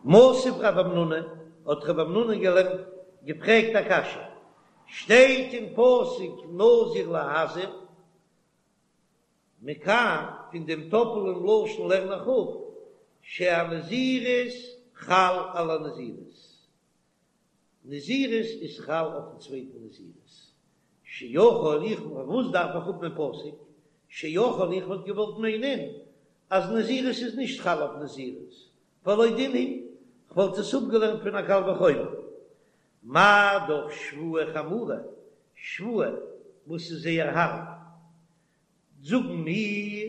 מתיב רב המנונא, האט רב המנונא געלערנט, געפרעגט א קשיא, שטייט אין פסוק נזיר להזיר, מכאן, פון דעם טאפלען לשון לערן איך אפ, שהנזירות חל על הנזירות. נזירות איז חל אויפן צווייטן נזירות. שיכול איך, פארוואס דארף איך האבן א פסוק? שיכול איך וואלט געוואלט מיינען אז נזירות איז נישט חל אויף נזירות, והלא דין הוא, כ'וואלט עס אפגעלערנט פון א קל וחומר. מה דאך שבועה חמורה, שבועה וואס איז זייער הארב, זאגן מיר,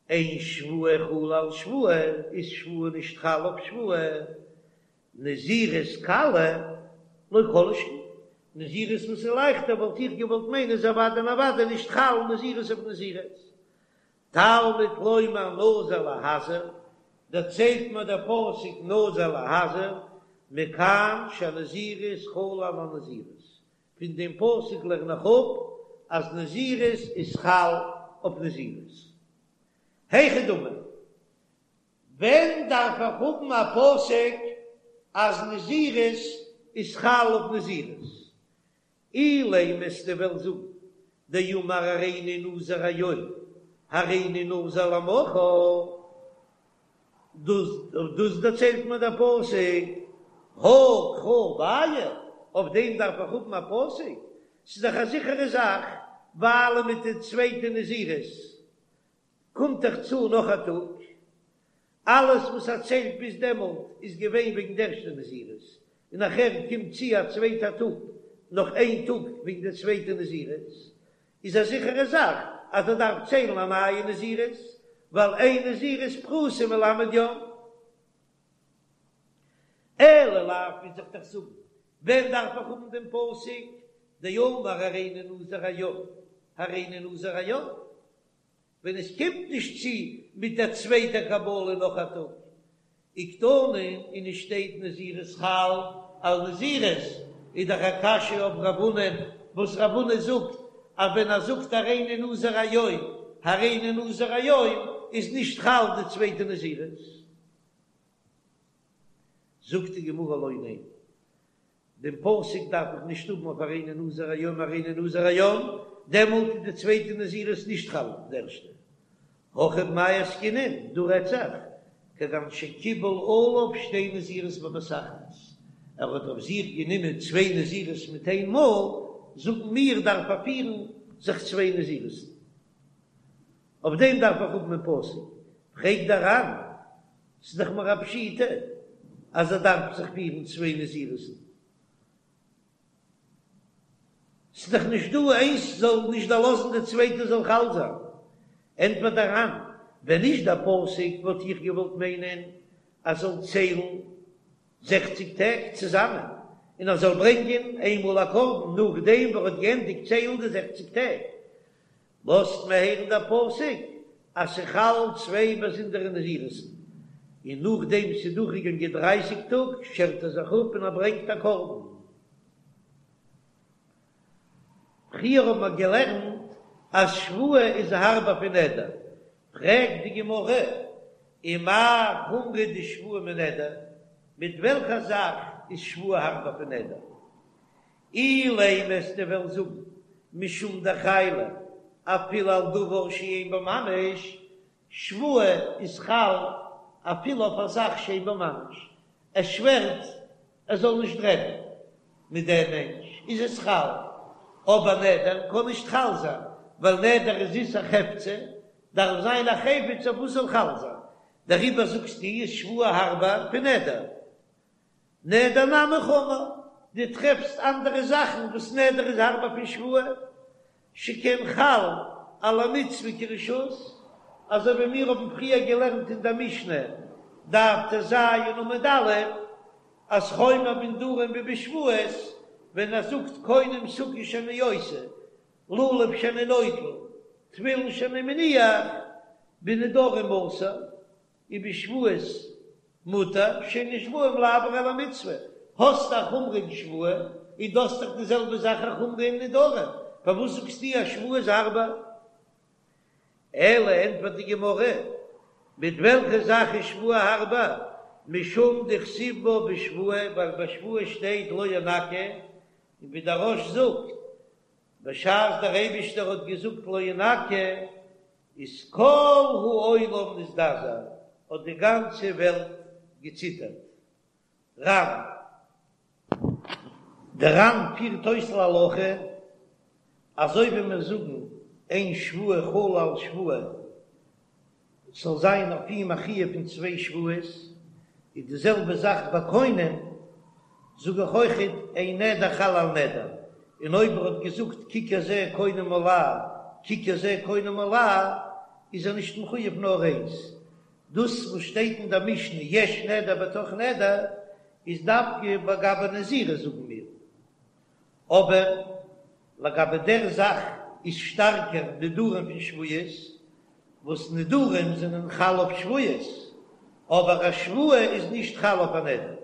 אין שבועה חלה על שבועה, איז שבועה נישט חל אויף שבועה, נזירות קלה לא כל שכן, נזירות וואס איז לייכטער וואלט איך געוואלט מיינען איז אוודאי און אוודאי נישט חל נזירות אויף נזירות. תלמוד לומר נזיר להזיר, דערציילט מיר דער פסוק נזיר להזיר, מכאן שהנזירות חלה על הנזירות, פון דעם פסוק לערן איך אפ אז נזירות איז חל אויף נזירות. היכי דמי, ווען דארף איך האבן א פסוק אז נזירות איז חל אויף נזירות? אילימא וועסטו וועלן זאגן דאמר הריני נזיר היום הריני נזיר למחר, דאס דאס דערציילט מיר דער פסוק, הא קרא בעיא, אויף דעם דארף איך האבן א פסוק? ס'איז דאך א זיכערע זאך, ווייל מיט די צווייטע נזירות קומט דאך צו נאך א טאג, אלעס וואס ער ציילט ביז דעמאלט איז געווען וועגן די ערשטע נזירות, און נאכער קומט צו א צווייטע טאג נאך איין טאג וועגן די צווייטע נזירות, איז א זיכערע זאך אז ער דארף ציילן א נייע נזירות, ווייל אין נזירות פחותה מל' יום. אלא לאו מוז איך דאך זאגן, ווען דארף איך האבן דעם פסוק דאמר הריני נזיר היום, הריני נזיר היום? ווען עס קומט נישט צו מיט דער צווייטער קבלה נאך א טאג, וקתני און עס שטייט נזירות חל על נזירות, איז דאך א קשיא אויף רב הונא, וואס רב הונא זאגט אז ווען ער זאגט הריני נזיר היום הריני נזיר היום איז נישט חל די צווייטע נזירות. זאגט די גמרא לא, ניין, דעם פסוק דארף איך נישט האבן אויף הריני נזיר היום הריני נזיר היום, דעמאלט איז די צווייטע נזירות נישט חל אויף די ערשטע. הכא במאי עסקינן, דא רעדט זיך, כגון שקיבל עליו שתי נזירות בבת אחת, ער האט אויף זיך גענומען צוויי נזירות מיט איין מאל, זאגן מיר דארף ער פירן זיך צוויי נזירות'ן. אויף דעם דארף איך האבן א פסוק. פרעגט דער ר"ן, ס'איז דאך מיר א פשיטא אז ער דארף זיך פירן צוויי נזירות'ן, ס'איז דאך נישט דא איינס זאל נישט דערלאזן די צווייטע זאל חל זיין. ענטפערט דער ר"ן, ווען נישט דער פסוק וואלט איך געוואלט מיינען אז זאל ציילן זעכציג טעג צוזאמען, און ער זאל ברענגען איינמאל א קרבן נאכדעם וואס ער האט געענדיגט ציילן די זעכציג טעג, לאזט מיר הערן דער פסוק אז ס'חל צוויי באזונדערע נזירות'ן, און נאכדעם ס'איז דורכגעגאנגען דרייסיג טאג שערט ער זיך אפ און ער ברענגט א קרבן. פריער האבן מיר געלערנט אז שבועה איז הארבער פון נדר, פרעגט די גמרא, ומאי חומרא דשבועה מנדר, מיט וועלכע זאך איז שבועה הארבער פון נדר? אילימא וועסטו וועלן זאגן משום דחיילא אפילו על דבר שאין בו ממש, שבועה איז חל אפילו אויף א זאך שאין בו ממש, ער שווערט ער זאל נישט רעדן מיט דעם מענטש איז עס חל, אבער נדר קען נישט חל זיין ווייל נדר איז איסור חפצא, דארף זיין א חפץ אויף וואס זאל חל זיין, דעריבער זאגסטו איז שבועה הארבער פון נדר. נדר נמי חמור, דו טרעפסט אנדערע זאכן וואס נדר איז הארבער פון שבועה, שכן חל על המצוה כרשות, אזוי ווי מיר האבן פריער געלערנט אין דער משנה, דף טז עמוד א', אז חומר בנדרים ובשבועות, ווען ער זאגט קונם סוכה שאני עושה, לולב שאני נוטל, תפילין שאני מניח, בנדרים אסור, ובשבועות מותר שאין נשבעים לעבור על המצוה, האסט א חומרא אין שבועה און דו האסט דאך די זעלבע זאך א חומרא אין נדרים, פארוואס זאגסטו אז שבועה איז הארבער? אלא ענטפערט די גמרא, מיט וועלכע זאך איז שבועה הארבער? משום דכתיב בה בשבועה, ווייל ביי שבועה שטייט לא ינקה, און ווי דער רא"ש זאגט, בשעת דער אייבישטער האט געזאגט לא ינקה, איז כל העולם נזדעזע, האט די גאנצע וועלט געציטערט. ר"ן. דער ר"ן פירט אויס להלכה, אזוי ווי מיר זאגן אין שבועה חלה על שבועה, ס'זאל זיין אויף אים א חיוב פון צוויי שבועות, איז די זעלבע זאך ביי קונם, זאג איך אויכעט אין נדר חל על נדר, און אויב ער האט געזאגט ככר זה קונם עלי, ככר זה קונם עלי, איז ער נישט מחויב נאר איינס, דאס וואס שטייט אין דער משנה יש נדר בתוך נדר איז דווקא לגבי נזירות זאגן מיר, אבער לגבי דער זאך איז שטארקער נדרים פון שבועות, וואס נדרים זענען חל אויף שבועות, אבער א שבועה איז נישט חל אויף א נדר.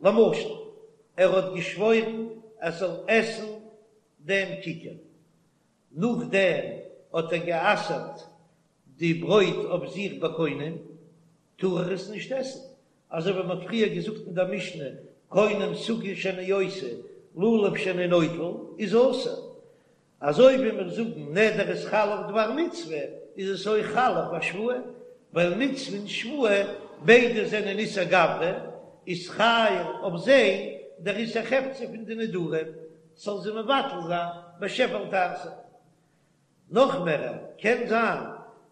למשל, ער האט געשוואוירן ער זאל עסן דעם ככר, נאכדעם האט ער גע'אסר'ט די ברויט אויף זיך בקונם, טאר ער עס נישט עסן, אזוי ווי מען האט פריער געזאגט אין דער משנה, קונם סוכה שאני עושה, לולב שאני נוטל, איז אסור. אזוי ווי מיר זאגן נדר איז חל אויף דבר מצוה, איז עס אויך חל אויף א שבועה, ווייל מצוה און שבועה ביידע זענען איסור גברא, איז חל אויף זיי דער איסור חפצא פון די נדרים, ס'זאל זיי מבטל זיין בשב ואל תעשה. נאך מער, קען זיין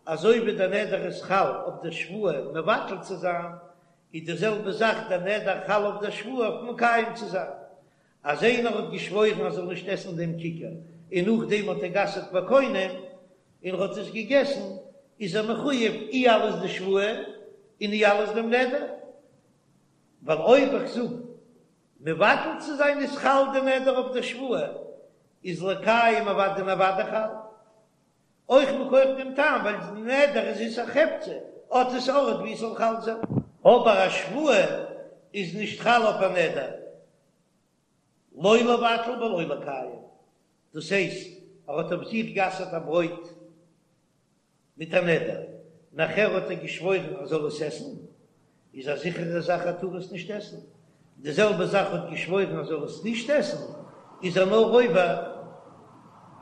אזוי ווי דער נדר איז חל אויף דער שבועה מבטל צו זיין, איז די זעלבע זאך דער נדר חל אויף דער שבועה אויף מקיים צו זיין. אז איינער האט געשוואוירן אז ער זאל נישט עסן דעם ככר, און נאכדעם האט ער גע'אסר'ט בקונם, און ער האט עס געגעסן, איז ער מחויב אי אלס די שבועה און אי אלס דעם נדר. ווייל אויב איך זאג מבטל צו זיין איז חל די נדר אויף דער שבועה, איז לקיים אוודאי און אוודאי חל. אויך מכח דעם טעם ווייל די נדר איז איסור חפצא, האט עס ארט ווי עס זאל חל זיין. אבער א שבועה איז נישט חל אויף א נדר, לא לבטל ולא לקיים, דאס הייסט ער האט אויף זיך גע'אסר'ט א ברויט מיט א נדר, נאכער האט ער געשוואוירן ער זאל עס עסן, איז א זיכערע זאך ער טאר עס נישט עסן, די זעלבע זאך האט געשוואוירן ער זאל עס נישט עסן, איז ער נאר עובר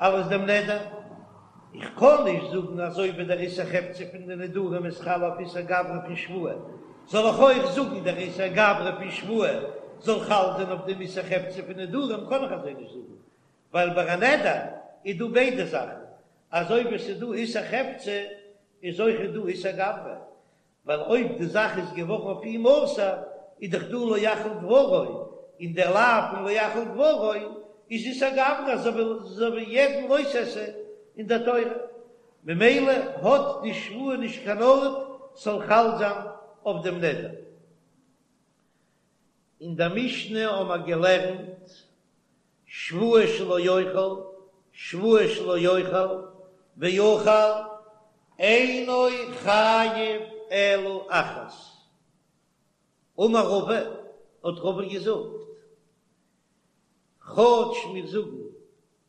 אלס דעם נדר. איך קען נישט זאגן אזוי ווי דער איסור חפצא פון די נדרים איז חל אויף איסור גברא פון שבועה, זאל איך אויך זאגן דער איסור גברא פון שבועה זאל חל זיין אויף דעם איסור חפצא פון נדרים, קען איך אזוי נישט זאגן, ווייל ביי א נדר איז דא ביידע זאכן, אזוי ווי עס איז דא איסור חפצא איז אויך דא איסור גברא, ווייל אויב די זאך איז געווארן אויף אים אסור איז דאך דא לא יחל דברו, און דער לאו פון לא יחל דברו איז איסור גברא אזוי ווי יעדן לא תעשה אין דער תורה, ממילא האט די שבועה נישט קיין ארט ס'זאל חל זיין אויף דעם נדר. אין דער משנה האבן מיר געלערנט שבועה שלא יאכל, שבועה שלא יאכל, ואכל, אינו חייב אלא אחת. אמר רבא, האט רבא געזאגט, כאטש מיר זאגן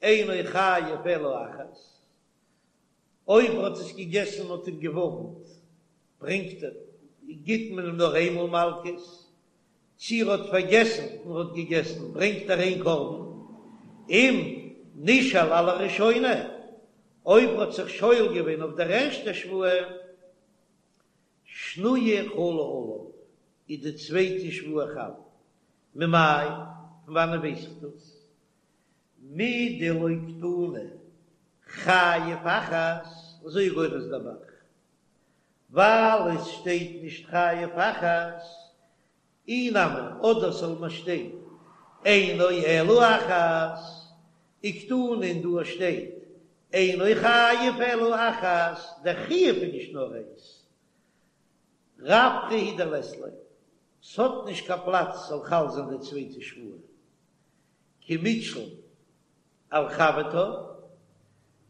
אינו חייב אלא אחת, אויב ער האט עס געגעסן און מ'האט אים געווארנט, ברענגט ער, גיט מען אים נאר איינמאל מלקות, צי ער האט פארגעסן און האט געגעסן, ברענגט ער איין קרבן, אם נשאל על הראשונה, אויב ער האט זיך שואל געווען אויף דער ערשטער שבועה, שניה חלה עליו, איז די צווייטע שבועה חל. ממאי, פון וואנען ווייס איך דאס? מדלא קתני חייב אחת, אזוי גורס דער ב"ח, ווייל עס שטייט נישט חייב אחת, אי נמי, אדער זאל מען שטיין אינו אלא אחת, וקתני און דא שטייט אינו חייב אלא אחת, דער חיוב איז נישט נאר איינס, רווחא הוא דלית ליה, ס'האט נישט קיין פלאץ ס'זאל חל זיין די צווייטע שבועה, כי מיתשיל על חברתה,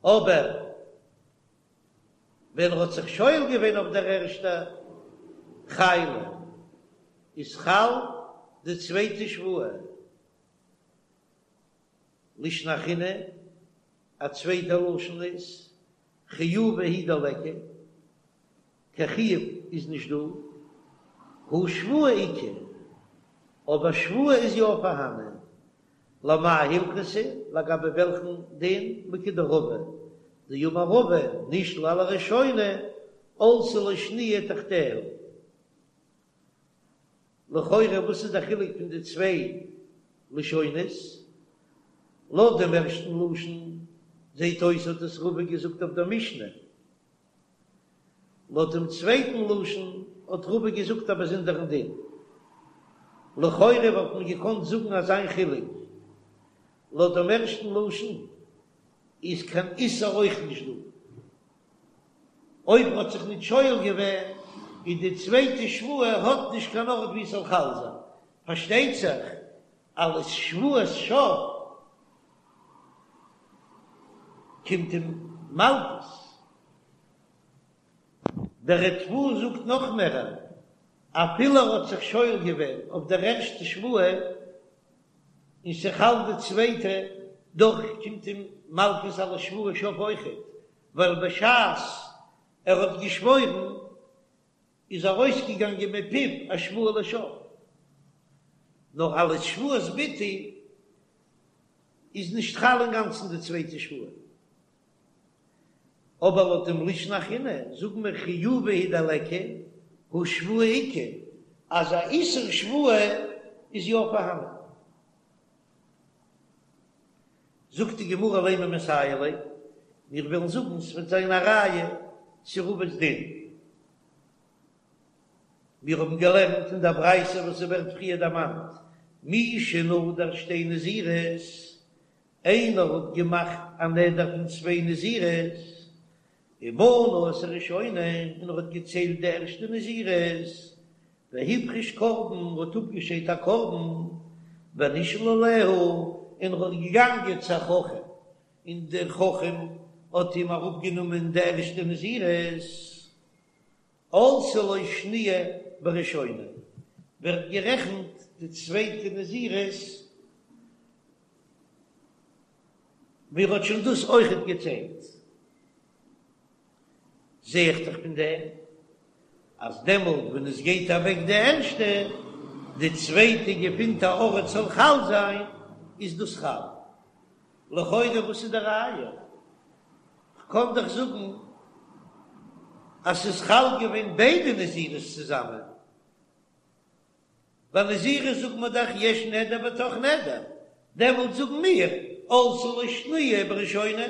אבער ווען ער האט זיך שואל געווען אויף דער ערשטע חיילא איז חל די צווייטע שבועה, לישנא אחרינא, א צווייטע לשון איז חיובא הוא דליכא, קיין חיוב איז נישט דא. הא שבועה איכא, אבער שבועה איז יא פארהאנען. למאי הלכתא, לגבי וועלכן דין? לכדרבא, דאמר רבא, נשאל על הראשונה, עלתה לו שניה תחתיה. לכאורה וואס איז די חילוק פון די צוויי לשונות? לויט דעם ערשטן לשון זעט אויס האט עס רבא געזאגט אויף דער משנה, לויט דעם צווייטן לשון האט רבא געזאגט א באזונדערן דין. לכאורה וואלט מען געקאנט זאגן אזיין חילוק, לויט דעם ערשטן לשון איז קיין איסור אויך נישט דא. אויב מ'האט זיך ניט שואל געווען, איז די צווייטע שבועה האט נישט קיין ארט וואו עס זאל חל זיין. פארשטייט זיך אלס שבועת שוא קומט אים מלקות. דער ריטב"א זאגט נאך מערער, אפילו ער האט זיך שואל געווען אויף דער ערשטע שבועה און ס'חל די צווייטע, דאך קומט אים מלקות אלס שבועת שוא אויכעט, ווייל בשעת ער האט געשוואוירן איז ארויסגעגאנגען מפיו א שבועה לשוא, נאר אלס שבועת ביטוי איז נישט חל אינגאנצן די צווייטע שבועה. אבער לויט דעם לישנא אחרינא זאגן מיר חיובא הוא דליכא הא שבועה איכא, אז א איסור שבועה איז יא פארהאנען. זאגט די גמרא לימא מסייע ליה, מיר וועלן זאגן ס'וועט זיין א ראיה צו רבא'ס דין. מיר האבן געלערנט אין דער ברייתא וואס ס'ווערט פריער דערמאנט, מי שנדר שתי נזירות, איינער האט געמאכט א נדר פון צוויי נזירות, ומנה את הראשונה, און ער האט געציילט די ערשטע נזירות, והפריש קרבן, האט אפגעשיידט א קרבן, ונשאל עליה, און ער האט געגאנגען צו א חכם, און דער חכם האט אים אראפגענומען די ערשטע נזירות, עלתה לו שניה בראשונה, ווערט גערעכנט די צווייטע נזירות, ווי ער האט שוין דאס אויכעט געציילט. זע איך דאך פון דעם אז דעמאלט ווען עס גייט אוועק די ערשטע, די צווייטע געפינט א ארט זאל חל זיין, איז דאס חל. לכאורה וואס איז די ראיה? כ'קען דאך זאגן אז ס'איז חל געווען ביידע נזירות צוזאמען. ביי נזירות זאגט מען דאך יש נדר בתוך נדר, דעמאלט זאגן מיר עלתה לו שניה בראשונה.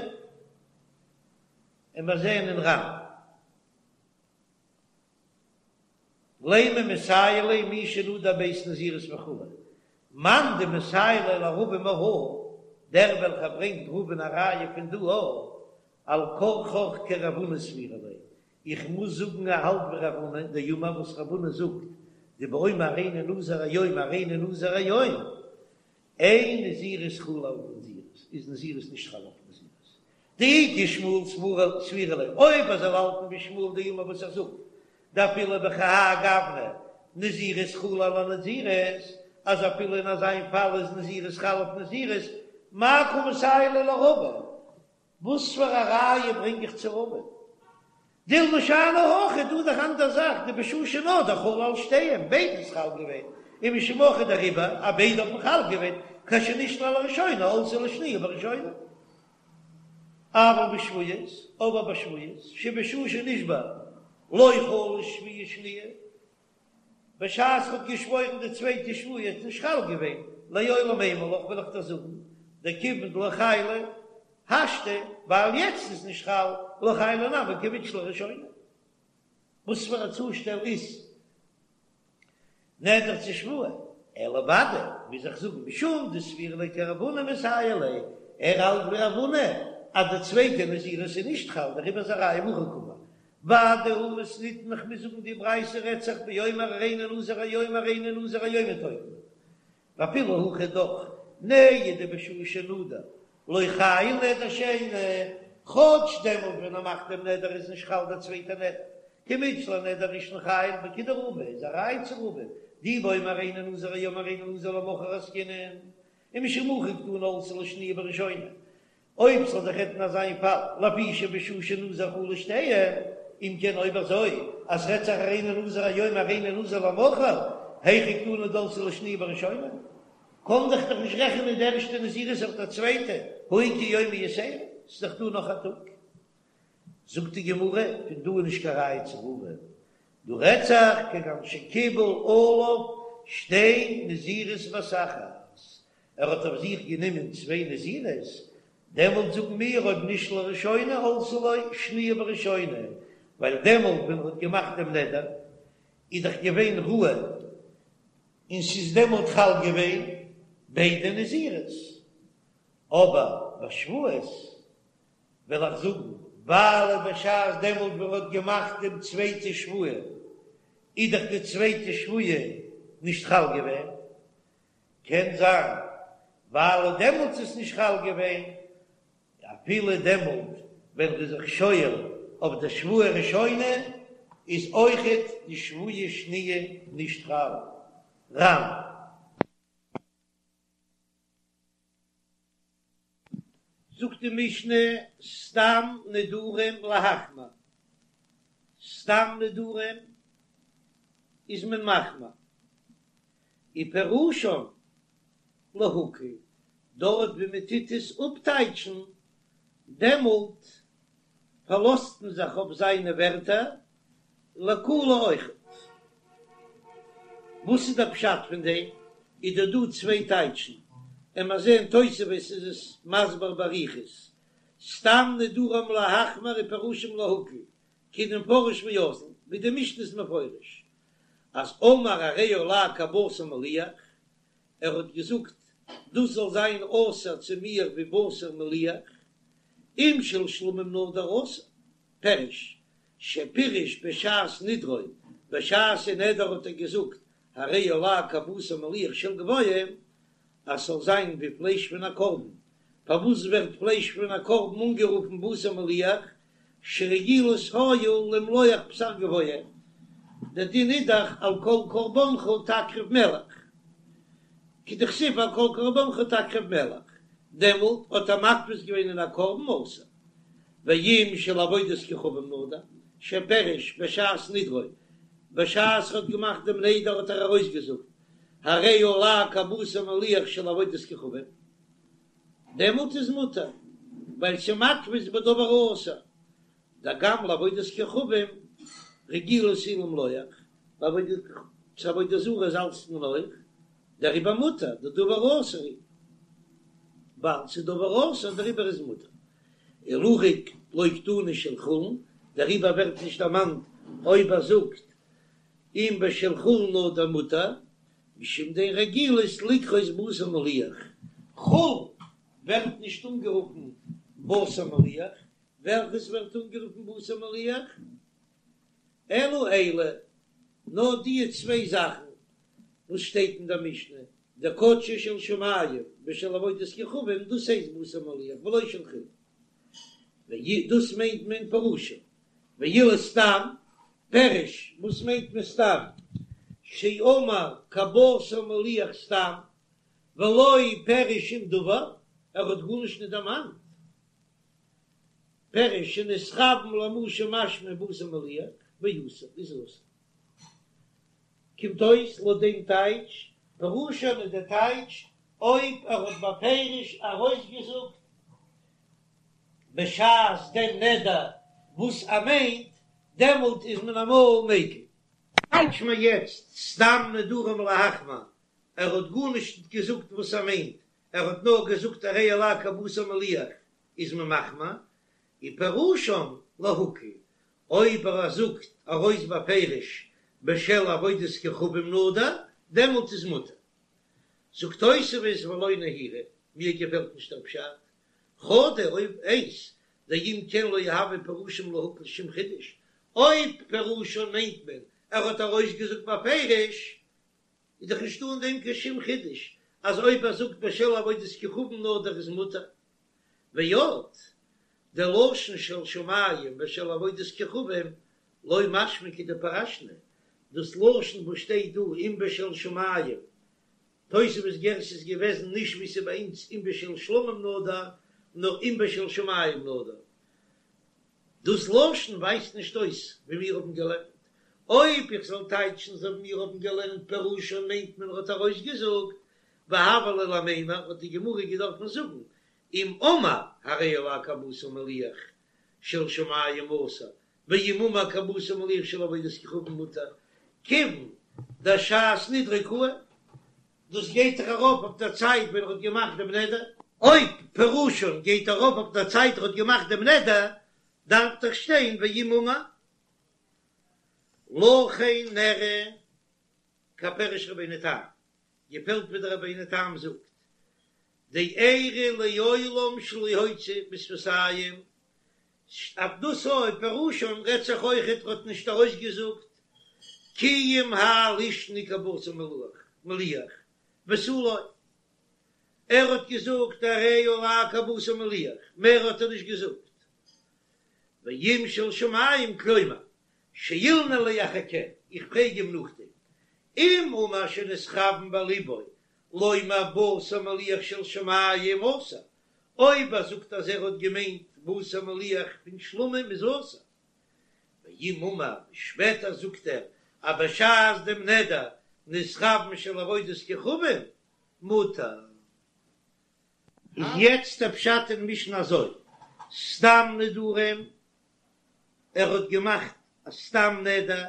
און מיר זעען אין ר"ן לימא מסייע ליה מי שנדר ב' נזירות וכו', מאן דמסייע ליה לרבא מהא, דער וועלכער ברענגט רבא'ן א ראיה פון דא א, על כרחך כרב הונא סבירא ליה, איך מוז זאגן ער האלט ווי רב הונא, דאמר וואס רב הונא זאגט, דבאומר הריני נזיר היום הריני נזיר היום, אין נזירות חלה על נזירות, איז נזירות נישט חל אויף נזירות. דאי כשמואל סבירא ליה, אויב ער זאל האלטן ווי שמואל דאמר וואס ער זאגט, דאפילו בכהאי גוונא נזירות חלה על נזירות, אז אפילו אין אזיין פאל איז נזירות חל אויף נזירות, מאי קא מסייע ליה לרבא? וואס פאר א ראיה ברענג איך צו רבא? דילמא שאני הכא, דא איז דאך אנדער זאך, דבשעה שנדר חל על שתיהן, ביידע איז חל געווען, ומשום הכי דעריבער אז ביידע האבן חל געווען, כשנשאל על הראשונה עלתה לו שניה בראשונה. אבל בשבועות, אבער ביי שבועות, שבשעה שנשבע לא חלה שבועה שניה, בשעת ר'האט געשוואוירן די צווייטע שבועה איז נישט חל געווען, לעולם אימא לך וועל איך דיר זאגן, דכיון דלא חיילא השתא, ווייל יעצט איז נישט חל, לא חיילא נמי כמתשאל אראשונה. וואס פאר א צושטעל איז נדר צו שבועה? אלא ודאי, מוז איך זאגן, משום דסבירא ליה כרב הונא מסייע ליה, ער האלט ווי רב הונא אז די צווייטע נזירות איז נישט חל, דעריבער איז א ראיה מהכא קאמר. ודאי הא מתניתין איך מוז זאגן די ברייתא רעדט זיך באומר הריני נזיר היום הריני נזיר היום מתוקן ואפילו הכי דאך נהי דבשעה שנדר לא חייל נדר שני כאטש דעמאלט ווען ער מאכט דעם נדר איז נישט חל דער צווייטער נדר כמתשאל אנדר ראשון חייל וכדרבא איז א ראיה צו רבא דאי באומר הריני נזיר היום הריני נזיר למחר עסקינן ומשום הכי קתני עלתה לו שניה בראשונה אויב ס'זאל זיך רעדן אזא איין פאל, לפי שבשעה שנזר חלו שתיהן, אם כן אויב אזוי. אז ס'רעדט זיך הריני נזיר היום הריני נזיר למחר, היכי קתני דעלתה ליה שניה בראשונה, קען דאך דאך נישט רעכענען די ערשטע נזירות אויף דער צווייטע, הא איכא יומא יתירא, ס'איז דאך דא נאך א טאג. זאגט די גמרא, פון דא איז נישט קיין ראיה צו רבא, דא רעדט זיך כגון שקיבל עליו שתי נזירות בבת אחת, ער האט אויף זיך גענומען צוויי נזירות, דעמאלט זאגן מיר אויב נשאל ראשונה עלתה לו שניה בראשונה, ווייל דעמאלט ווען ער האט געמאכט דעם נדר איז דאך געווען ראוי און ס'איז דעמאלט חל געווען ביידע נזירות, אבער ביי שבועות וועל איך זאגן, ווייל בשעת דעמאלט ווען ער האט געמאכט דעם צווייטע שבועה איז דאך די צווייטע שבועה נישט חל געווען, קען זיין ווייל דעמאלטס איז נישט חל געווען, אפילו דעמאלט ווען ר'איז זיך שואל אויף די שבועה ראשונה איז אויכעט די שבועה שניה נישט חל. ר"ן. זאגט די משנה סתם נדרים להחמיר, סתם נדרים איז מען מחמיר, ופירושן להקל, דארט ווי מען טוט עס אפטייטשן, דעמאלט פארלאזט מען זיך אויף זיינע ווערטער, לקולא אויכעט. וואס איז דער פשט פון דעם? איז דא דא צוויי טייטשן, און מיר זעען תוספות איז עס מסביר באריכות, סתם נדרים להחמיר ופירושם להקל, כדמפרש ואזיל, ווי די משנה איז מפרש אז אמר הרי עלי כבשר מליח, ער האט געזאגט דאס זאל זיין אסור צו מיר ווי בשר מליח, אם של שלמים נדר אסור, פירוש, שפירש בשעת נדרו, בשעת אין נדר האט ער געזאגט הרי עלי כבשר מליח של גבוהים, אז ס'זאל זיין ווי פלייש פון א קרבן, פארוואס ווערט פלייש פון א קרבן אנגערופן בשר מליח, שרגילות היו למלוח בשר גבוה, דער דין איז דאך על כל קרבנך תקריב מלח, כדכתיב על כל קרבנך תקריב מלח, דעמאלט האט ער מתפיס געווען אין א קרבן אסור, ואם של עבודת כוכבים נדר, שפירש בשעת נדרו, בשעת ער האט געמאכט דעם נדר האט ער ארויסגעזאגט הרי עלי כבשר מליח של עבודת כוכבים, דעמאלט איז מותר, ווייל ס'מתפיס בדבר האסור, דגם לעבודת כוכבים רגילות היו למלוח, צו עבודה זרה זאלצט מען אויך, דעריבער מותר, דדבר האסור הוא, ווייל ס'איז דבר האסור דעריבער איז מותר. ולהכי לא קתני של חולין, דעריבער ווערט נישט דערמאנט אויב ער זאגט אם בשל חולין נדר מותר, משום דאין רגילות לקרות בשר מליח, חולין ווערט נישט אנגערופן בשר מליח, וועלכעס ווערט אנגערופן בשר מליח? אלא אלו, נאר די צוויי זאכן וואס שטייט אין דער משנה, דקדשו של שמים ושל עבודת כוכבים, דאס הייסט בשר מליח ולא של חולין, דאס מיינט מען פירושו, ואילו סתם, פירוש, וואס מיינט מען סתם? שאמר כבשר מליח סתם, ולא פירש שום דבר, ער האט גארנישט נישט דערמאנט. פירוש שנתכוון למה שמשמע בשר מליח, ואסור, איז אסור. קומט אויס לויט דעם טייטש, פירושן איז דער טייטש אויב ער האט בפירוש ארויסגעזאגט בשעת דעם נדר וואס ער מיינט, דעמאלט איז מען אמאל מיקל. טייטש מיר יעצט סתם נדרים להחמיר, ער האט גארנישט געזאגט וואס ער מיינט, ער האט נאר געזאגט הרי עלי כבשר מליח איז מען מחמיר, ופירושן להקל, אויב ער זאגט ארויס בפירוש בשל עבודת כוכבים נדר, דעמאלט איז מותר. זאגט תוספות ולא נהירא, מיר געפעלט נישט דער פשט, חדא אויב איינס, דאם כן לא הוי פירושן להקל שום חידוש, אויב פירושן מיינט מען ער האט ארויסגעזאגט בפירוש, איז דאך נישטא אין דעם קיין שום חידוש אז אויב ער זאגט בשל עבודת כוכבים נדר איז מותר. ועוד, דלשון של שמים ושל עבודת כוכבים לא משמע כדפרשנא, דאס לשון וואס שטייט דא אם בשל שמים, תוספות גירסא איז געוועזן נישט ווי ס'איז ביי אונז אם בשל שלמים נדר, נאר אם בשל שמים נדר. דאס לשון ווייזט נישט אויס ווי מיר האבן געלערנט. אויב איך זאל טייטשן אזוי ווי מיר האבן געלערנט פירושן מיינט מען ער האט ארויסגעזאגט, והוה ליה למימר האט די גמרא געדארפן זאגן אם אמר הרי עלי כבשר מליח של שמים אסור, ואם אמר כבשר מליח של עבודת כוכבים מותר, כיוון דאשעת נדרו קאי, דאס גייט דאך ארויף אויף דער צייט ווען ער האט געמאכט דעם נדר. אויב פירושן גייט ארויף אויף דער צייט ער האט געמאכט דעם נדר, דארף דאך שטיין ואם אמר. לכן נראה כפירוש רבינו תם, געפעלט ווי דער רבינו תם זאגט, דאיירי לעולם שלא הוציא בשפתים, אויף דאס אויב פירושן רעדט זיך אויכעט ער האט נישט ארויסגעזאגט כי אם האי לישנא כבשר מליח ותו לא, ער האט געזאגט הרי עלי כבשר מליח, מער האט ער נישט געזאגט. ואם של שמים כלומר שאילנא ליה אחר כן, איך פרעג אים נאכדעם, אם אמר שנתכוון בליבו לומר בשר מליח של שמים אסור, אויב ער זאגט אז ער האט געמיינט בשר מליח פון שלמים איז אסור, ואם אמר שפעטער זאגט ער אז בשעת דעם נדר נתכוון של עבודת כוכבים מותר. איז יעצט דער פשט אין משנה אזוי, סתם נדרים, ער האט געמאכט א סתם נדר,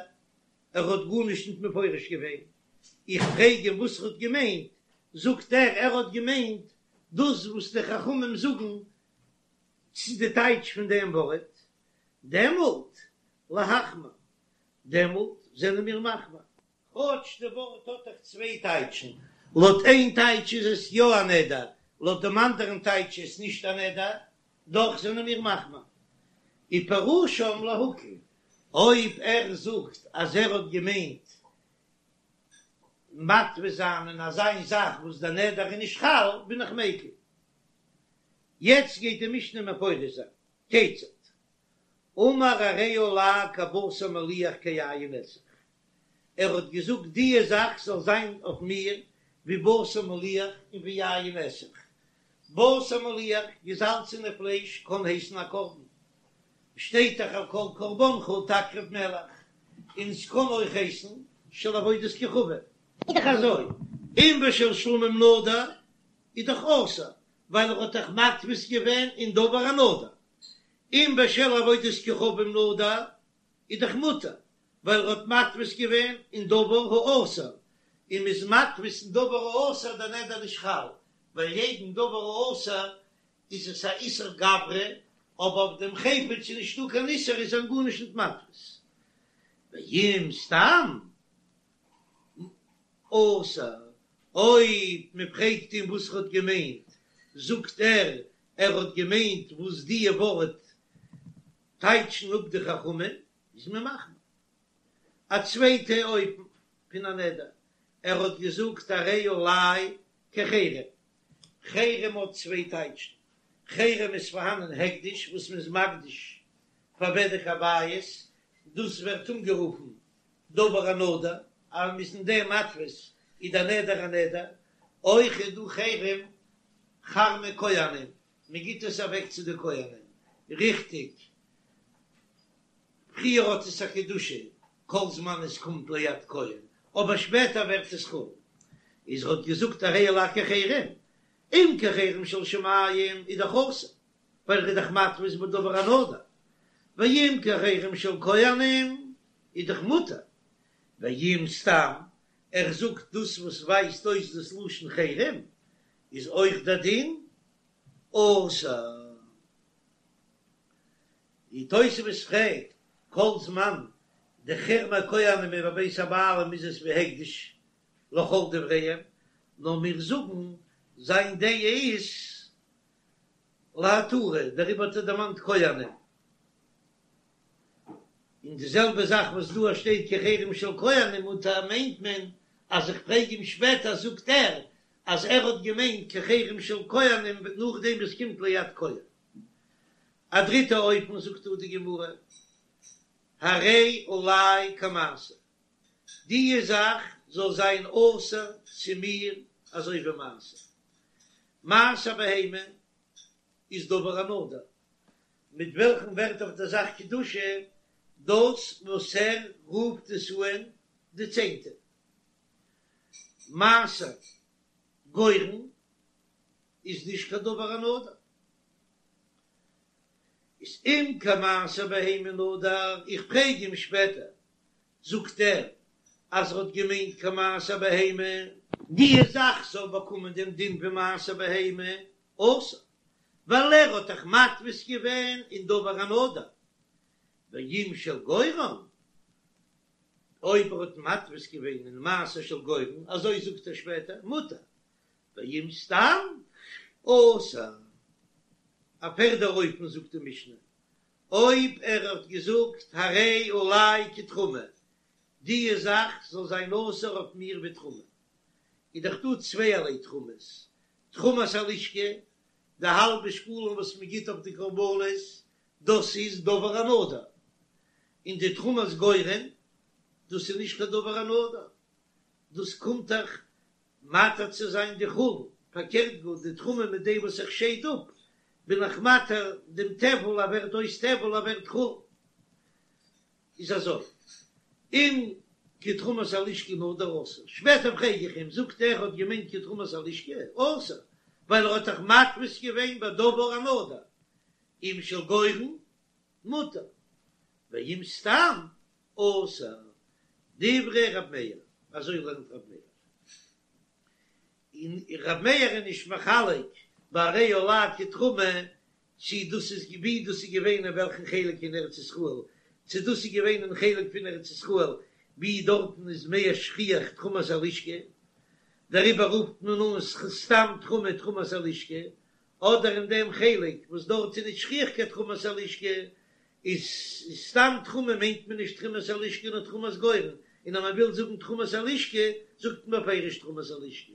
ער האט גארנישט נישט מפרש געווען, איך פרעג אים וואס ער האט געמיינט, זאגט ער ער האט געמיינט דאס וואס די חכמים זאגן צו די טייטש פון דעם ווארט, דעמאלט להחמיר, דעמאלט זענען מיר מחמיר. כאטש די ווארט האט דאך צוויי טייטשן, לויט איין טייטש איז עס יא א נדר, לויט דעם אנדערן טייטש איז עס נישט א נדר, דאך זענען מיר מחמיר. ופירושם להקל, אויב ער זאגט אז ער האט געמיינט מתפיס זיין אין אזא זאך וואס דער נדר איז נישט חל, בין איך מיקל. יעצט גייט די משנה מפרש זיין, כיצד? אמר הרי עלי כבשר מליח כיין נסך, ער האט געזאגט דיע זאך זאל זיין אויף מיר ווי בשר מליח און ווי יין נסך, בשר מליח, געזאלצענע פלייש, קען הייסן א קרבן, שטייט דאך על כל קרבנך תקריב מלח, און ס'קען אויך הייסן של עבודת כוכבים. איז דאך אזוי, אם בשל שלמים נדר איז דאך אסור, ווייל ער האט דאך מתפיס געווען אין דבר הנדור, אם בשל עבודת כוכבים נדר איז דאך מותר, ווייל ער האט מתפיס געווען אין דבר האסור, און מ'איז מתפיס אין דבר האסור דער נדר נישט חל, ווייל יעדן דבר האסור איז עס א איסור גברא, אבער אויף דעם חפץ איז נישטא קיין איסור איז ער גארנישט נישט מתפיס. ואם סתם אסור, אויב מ'פרעגט אים וואס ער האט געמיינט, זאגט ער ער האט געמיינט וואס דיע ווארט טייטשן אפ די חכמים, איז מען מחמיר. א צווייטע אופן פון א נדר, ער האט געזאגט הרי עלי כחרם, חרם האט צוויי טייטשן, חרם איז פארהאנען הקדש וואס מען איז מקדיש פאר בדק הבית, דאס ווערט אנגערופן דבר הנדור, אז מען איז אין דעם מתפיס איז דער נדר א נדר, אויך איז דא חרם חרמי כהנים, מען גיט עס אוועק צו די כהנים, ריכטיג, פריער האט עס א קדושה כל זמן עס קומט ליד כהן, אבער שפעטער ווערט עס חול. איז ער האט געזאגט הרי עלי כחרם, אם כחרם של שמים איז דאך אסור, ווייל ער איז דאך מתפיס בדבר הנדור, ואם כחרם של כהנים איז דאך מותר, ואם סתם ער זאגט דאס וואס ווייזט אויס דאס לשון חרם איז אויך דער דין אסור. די תוספות פרעגט, כל זמן די חרמי כהנים איז בבית הבעלים איז עס ווי הקדש לכל דבריהם, נאר מיר זאגן זיין דעה איז להתרה, דעריבער האט ער דערמאנט כהנים. און די זעלבע זאך וואס דא שטייט כחרם של כהנים מותר מיינט מען אז איך פרעג אים שפעטער זאגט ער אז ער האט געמיינט כחרם של כהנים נאכדעם וואס קומט ליד כהן. א דריטע אופן זאגט דא די גמרא, הרי עלי כמעשר, דיע זאך זאל זיין אסור צו מיר אזוי ווי מעשר. מעשר בהמה איז דבר הנדור, מיט וועלכן ווערט אויף דער זאך קדושה? דאס וואס ער רופט עס אן די צענטע. מעשר גורן איז נישט קיין דבר הנדור. איז אם כמעשר בהמה נדר, איך פרעג אים שפעטער, זאגט ער אז ער האט געמיינט כמעשר בהמה. די זאך זאל באקומען דעם דין פון מעשר בהמה, אסור, ווייל ער האט דאך מתפיס געווען אין דבר הנדור, ואם של גורן, אויב ער האט מתפיס געווען אין מעשר של גורן, אזוי זאגט ער שפעטער, מותר, ואם סתם, אסור. א פערדע אופן זאגט די משנה, אויב ער האט געזאגט הרי עלי כתרומה, די זאך זאל זיין אסור אויף מיר ווי תרומה, איז דאך דא צווייערליי תרומות, תרומת הלשכה, די האלבע שקלים וואס מען גיט אויף די קרבנות, דאס איז דבר הנדור, און די תרומת גורן, דאס איז נישט קיין דבר הנדור, דאס קומט דאך מתיר צו זיין די חולין, פארקערט גאר די תרומה מיט דעם וואס איך שייד אפ, בין איך מתיר דעם טבל, ער ווערט אויס טבל, ער ווערט חולין. איז אזוי, אם כתרומת הלשכה נדר אסור, שפעטער פרעג איך אים, זאגט ער האט געמיינט כתרומת הלשכה, אסור, ווייל ער האט דאך מתפיס געווען בדבר הנדור, אם של גורן, מותר, ואם סתם, אסור, דברי ר' מאיר, אזוי לערנט ר' מאיר, און ר' מאיר איז נישט מחלק ביי הרי עלי כתרומה צי דאס איז ווי דאס איז געווען אין וועלכן חלק אין ארץ ישראל, צו דאס איז געווען אין חלק פון ארץ ישראל ווי דארטן איז מער שכיח תרומת הלשכה, דעריבער רופט מען אן סתם תרומה תרומת הלשכה, אדער אין דעם חלק וואס דארט איז נישט שכיח קיין תרומת הלשכה, איז סתם תרומה מיינט מען נישט תרומת הלשכה נאר תרומת גורן, און אז מען וויל זאגן תרומת הלשכה זאגט מען בפירוש תרומת הלשכה.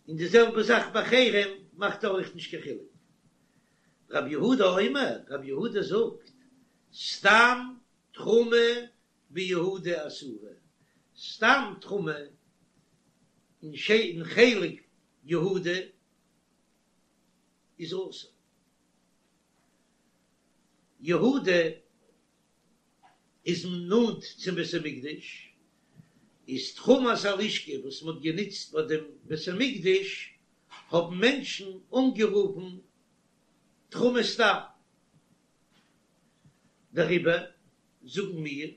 און די זעלבע זאך ביי חרם מאכט ער אויך נישט קיין חילוק. רב יהודה אומר, רב יהודה זאגט, סתם תרומה ביהודה אסורה, סתם תרומה אין חלק יהודה איז אסור. יהודה איז נאנט צום בית המקדש, איז תרומת הלשכה וואס מען האט גענוצט ביי דעם בית המקדש האבן מענטשן אנגערופן תרומה סתם, דעריבער זאגן מיר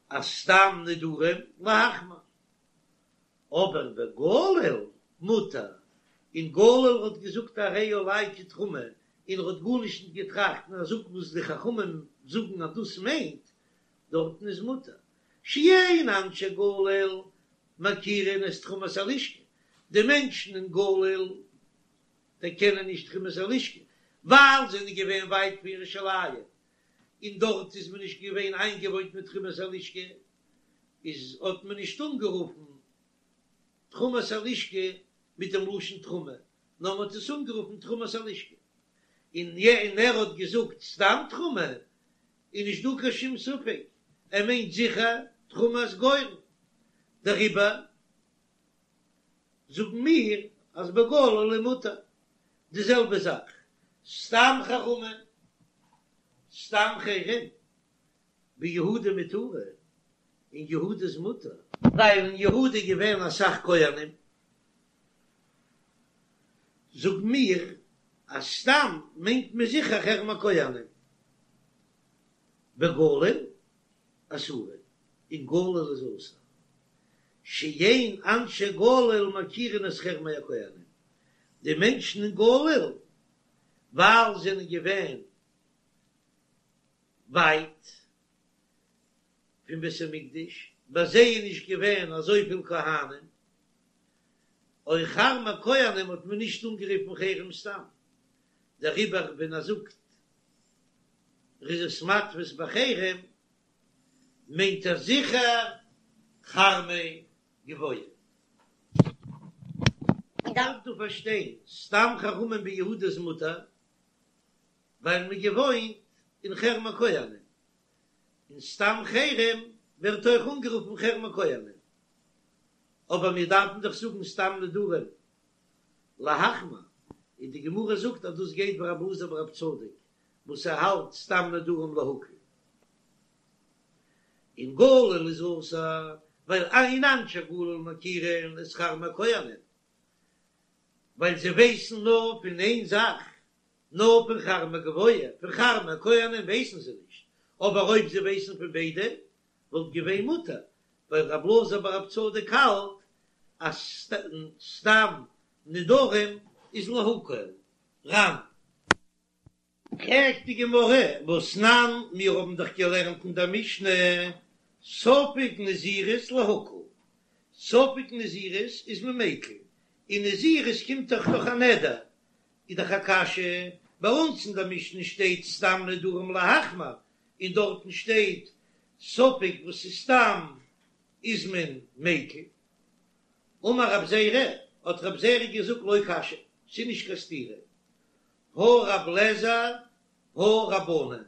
אז סתם נדרים להחמיר. אבער בגליל מותר, אין גליל האט געזאגט הרי עלי כתרומה און ער האט גארנישט נישט געטראכט און ער זאגט וואס די חכמים זאגן אז דאס מיינט, דארטן איז מותר, שאין אנשי גליל מכירין את תרומת הלשכה, די מענטשן אין גליל דערקענען נישט תרומת הלשכה, ווייל זיי זענען געווען ווייט פון ירושלים און דארט איז מען נישט געווען איינגעוואוינט מיט תרומת הלשכה, איז האט מען נישט אנגערופן תרומת הלשכה מיט דעם לשון תרומה, נאר מען האט עס אנגערופן תרומת הלשכה, און און ער האט געזאגט סתם תרומה, איז נישט דא קיין שום ספק, ער מיינט זיכער תרומת גורן, דעריבער זאגן מיר אז בגליל איז מותר, די זעלבע זאך סתם חרמה, סתם חרם. ביהודה מותרין, אין יהודה איז מותר. ווייל אין יהודה איז געווען אסאך כהנים, זאגן מיר אז סתם מיינט מען זיכער חרם הכהנים. בגליל אסורין, אין גליל איז אסור. שאין אנשי גליל מכירין את חרמי הכהנים, די מענטשן אין גליל ווייל זענען געווען ווייט פון בית המקדש, ביי זיי איז נישט געווען אזויפיל כהנים, אויך חרמי כהנים האט מען נישט אנגערופן חרם סתם, דעריבער ווען ער זאגט ער איז עס מתפיס בחרם מיינט ער זיכער חרמי גבוה. מ'דארף דא פארשטיין, סתם חרמים ביהודה איז מותר, ווייל מ'איז געוואוינט אין חרם הכהנים, און סתם חרם ווערט אויך אנגערופן חרם הכהנים, אבער מיר דארפן דאך זאגן סתם נדרים להחמיר, און די גמרא זאגט אז דאס גייט ווי רבי אלעזר ברבי צדוק. וואס ער האלט סתם נדרים להקל. אין גליל איז אסור ווייל אין אנשי גליל מכירין את כרמי כהנים, ווייל זיי ווייסן נאר פון איין זאך, נאר פון כרמי גבוה, פון כרמי כהנים ווייסן זיי נישט, אבער אויב זיי ווייסן פון ביידע וואלט געווען מותר, ווייל רב אלעזר בר רב צדוק האלט אז סתם נדרים איז להקל. ר"ן. פרעגט די גמרא, והתנן, מיר האבן דאך געלערנט אין דער משנה, ספק נזירות להקל, ספק נזירות איז מען מיקל, און נזירות קומט דאך דורך א נדר, איז דאך א קשיא, ביי אונז אין דער משנה שטייט סתם נדרים להחמיר, און דארטן שטייט ספק וואס איז סתם איז מען מיקל. אמר רב זירא, האט רב זירא געזאגט לא קשיא, ס'איז נישט קיין סתירה, הא רב לעזר הא רבנן,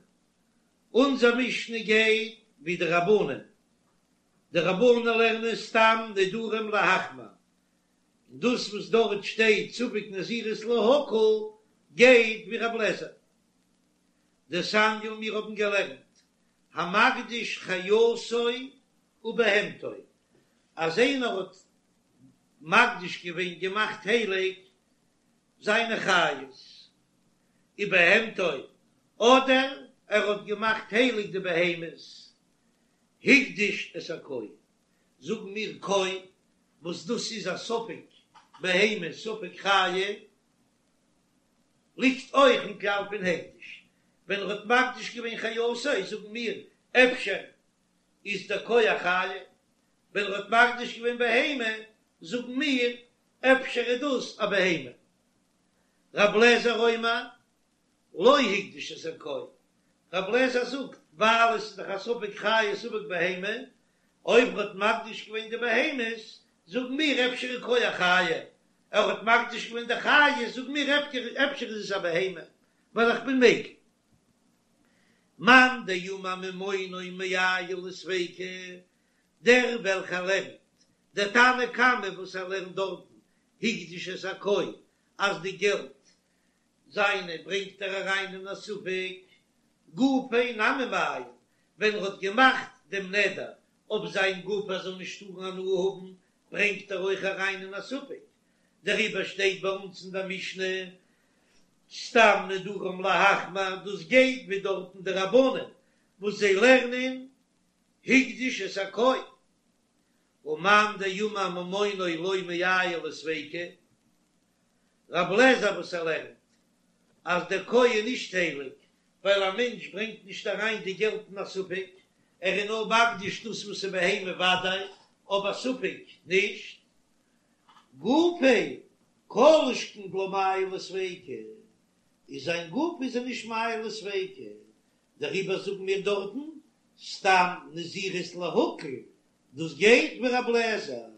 אונזער משנה גייט ווי די רבנן, די רבנן לערנען סתם נדרים להחמיר, און דאס וואס דארט שטייט ספק נזירות להקל גייט ווי רב לעזר. דתניא מיר האבן געלערנט המקדיש חיותו ובהמתו, אז איינער האט מקדיש געווען געמאכט הייליג זיינע חיות ובהמתו, אדער ער האט געמאכט הייליג די בהמות, הקדיש את הכוי, זאגן מיר כוי, וואס דאס איז א ספק בהמה ספק חיה, ליגט אויך אין כלל פון הקדש, ווען ער האט מקדיש געווען חיותו זאגן מיר אפשר איז דער כוי א חיה, ווען ער האט מקדיש געווען בהמה זאגן מיר אפשר איז דאס א בהמה. רב לעזער אומר לא הקדיש את הכוי, רב לעזער זאגט ווייל עס איז דאך א ספק חיה ספק בהמה, אויב ער האט מקדיש געווען די בהמות זאגן מיר אפשר איז כוי א חיה, ער האט מקדיש געווען די חיות זאגן מיר אפשר איז עס א בהמה, ווייל איך בין מיקל. מאן דאמר ממונו מעייל לספיקא, דער וועלכער לערנט דער תנא קמא וואס ער לערנט דארטן הקדיש את הכוי אז די געלט זיינע ברענגט ער אריין אין א ספק, גופיה נמי מעייל, ווען ער האט געמאכט דעם נדר אויף זיין גוף ער זאל נישט טארן הנאה האבן ברענגט ער אויך אריין אין א ספק, דעריבער שטייט ביי אונז אין דער משנה סתם נדרים להחמיר, דאס גייט ווי דארטן די רבנן וואס זיי לערנען הקדיש את הכוי, ומאן דאמר ממונו לא מעייל לספיקא, רב לעזער וואס ער לערנט אז דער כוי איז נישט הייליג ווייל א מענטש ברענגט נישט אריין די געלט אין א ספק, ער איז נאר מקדיש דאס וואס איז בהמה וודאי, אבער ספק נישט. גופיה כל שכן דלא מעייל לספיקא, איז זיין גוף איז ער נישט מעייל לספיקא, דעריבער זאגן מיר דארטן סתם נזירות להקל, דאס גייט ווי רב לעזער.